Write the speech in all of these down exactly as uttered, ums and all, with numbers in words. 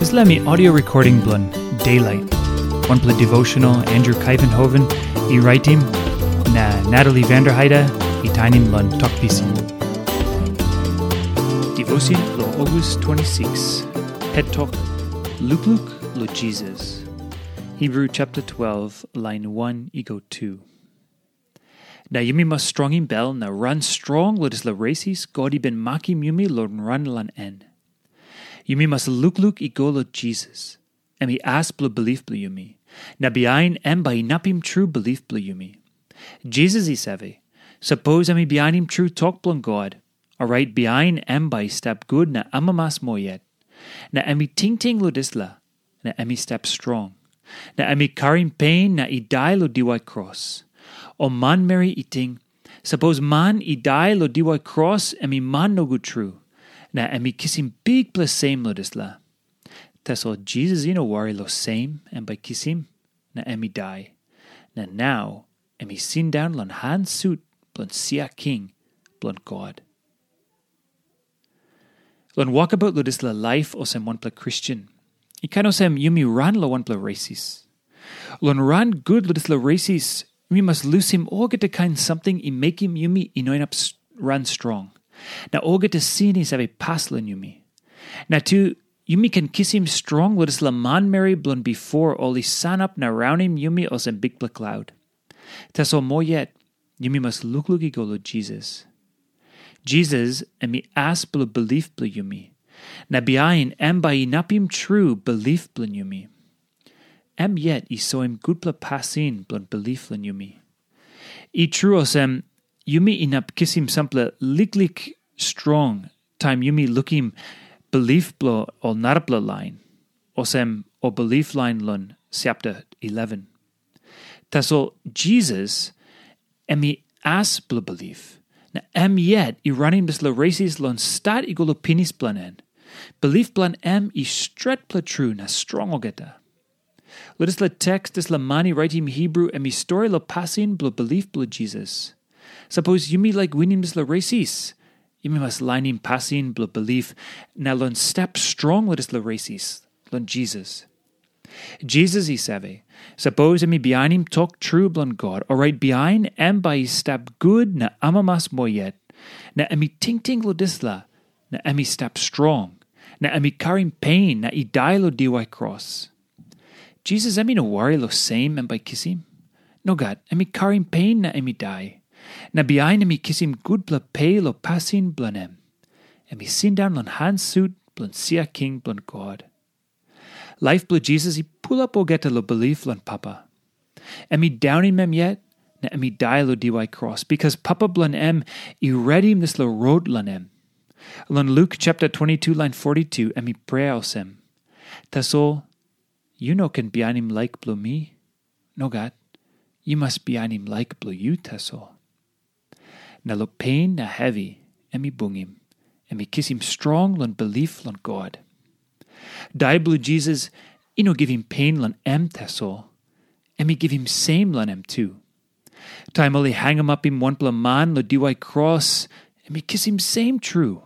Dispela mi audio recording bilong Daylight, wanpela devotional Andrew Kuyvenhoven i raitim, na Natalie Vanderheide i tainim long Tok Pisin. Devotion long August twenty-six. Het tok, Lukluk long Jisas. Hebrew chapter twelve, line one i go two. Na yumi mas strongim bel na ran strong long dispela resis God i bin makim yumi long ran long en. Yumi mas lukluk i go long Jisas, em i as bilong bilip bilong yumi, na bihain em bai inapim tru bilip bilong yumi. Jisas i save, sapos em i bihainim tru tok bilong God, orait bihain em bai i stap gut na amamas moa yet. Na em i tingting long dispela, na em i stap strong. Na em i karim pen na i dai long diwai kros. Ol manmeri i ting, sapos man i dai long diwai kros, em i man nogut tru, na em i kisim bikpela sem long dispela. Tasol Jisas i no wari long sem em bai kisim, na em i dai. Na nau em i sindaun long han sut bilong sia king bilong God. Long wokabaut long dispela laip olsem wanpela Kristen, i kain olsem yumi ran long wanpela resis. Long ran gut long dispela resis, yumi mas lusim olgeta kain samting i mekim yumi i no inap ran strong, na olgeta sin i save pas long yumi. Na tu, yumi ken kisim strong long dispela manmeri bilong bipo ol i sanap na raunim yumi olsem bikpela klaut. Tasol moa yet, yumi mas lukluk i go long Jisas. Jisas em i as bilong bilip bilong yumi, na bihain em bai inapim tru bilip bilong yumi. Em yet i soim gutpela pasin bilong bilip long yumi. I tru olsem, yumi inap kisim sampela liklik strong taim yumi lukim bilip bilong ol narapela lain, olsem ol bilip lain long chapter eleven. Tasol Jisas em i as bilong bilip, na em yet i ranim dispela resis long stat i go long pinis bilong en. Bilip bilong em i stretpela tru na strong olgeta. Long dispela teks, dispela man i raitim Hebrew em i stori long pasin bilong bilip bilong Jisas. Sapos yumi laik winim dispela resis, yumi mas lainim pasin bilong bilip na long stap strong long dispela resis, long Jisas. Jisas i save, sapos em i bihainim tok tru bilong God, orait bihain em bai i stap gut na amamas moa yet, na em i tingting long dispela, na em i stap strong, na em i karim pen na i dai long diwai kros. Jisas em i no wari long sem em bai kisim. Nogat, em i karim pen na em i dai. Na bihain em i kisim gutpela pe long pasin bilong em. Em i sindaun long han sut bilong sia king bilong God. Laip bilong Jisas i pulap olgeta long bilip long Papa. Em i daunim em yet, na em i dai long diwai kros, bikas Papa bilong em i redim dispela rot long em. Long Luk chapter twenty-two, line forty-two, em i prea olsem, "Tasol, yu no ken bihainim laik bilong mi. Nogat, yu mas bihainim laik bilong yu tasol." Na long pen na hevi em i bungim, em i kisim strong long bilip long God. Dai bilong Jisas i no givim pen long em tasol, em i givim sem long em tu. Taim ol i hangamapim wanpela man long diwai kros, em i kisim sem tru.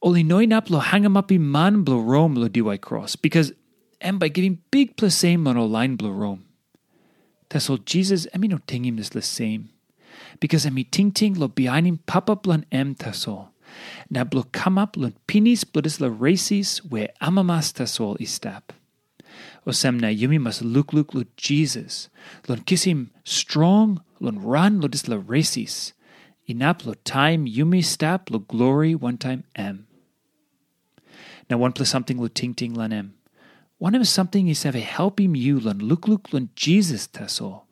Ol i no inap long hangamapim man bilong Rom long diwai kros, bikas em bai givim bikpela sem long ol lain bilong Rom. Tasol Jisas em i no tingim dispela sem, bikas em i tingting long bihainim Papa bilong em tasol, na bilong kamap long pinis bilong dispela resis we amamas tasol i stap. Olsem na yumi mas lukluk long Jisas, long kisim strong long ran long dispela resis, inap long taim yumi stap long glori wantaim em. Na wanpela samting long tingting long em. Wanem samting i save helpim yu long lukluk long Jisas tasol,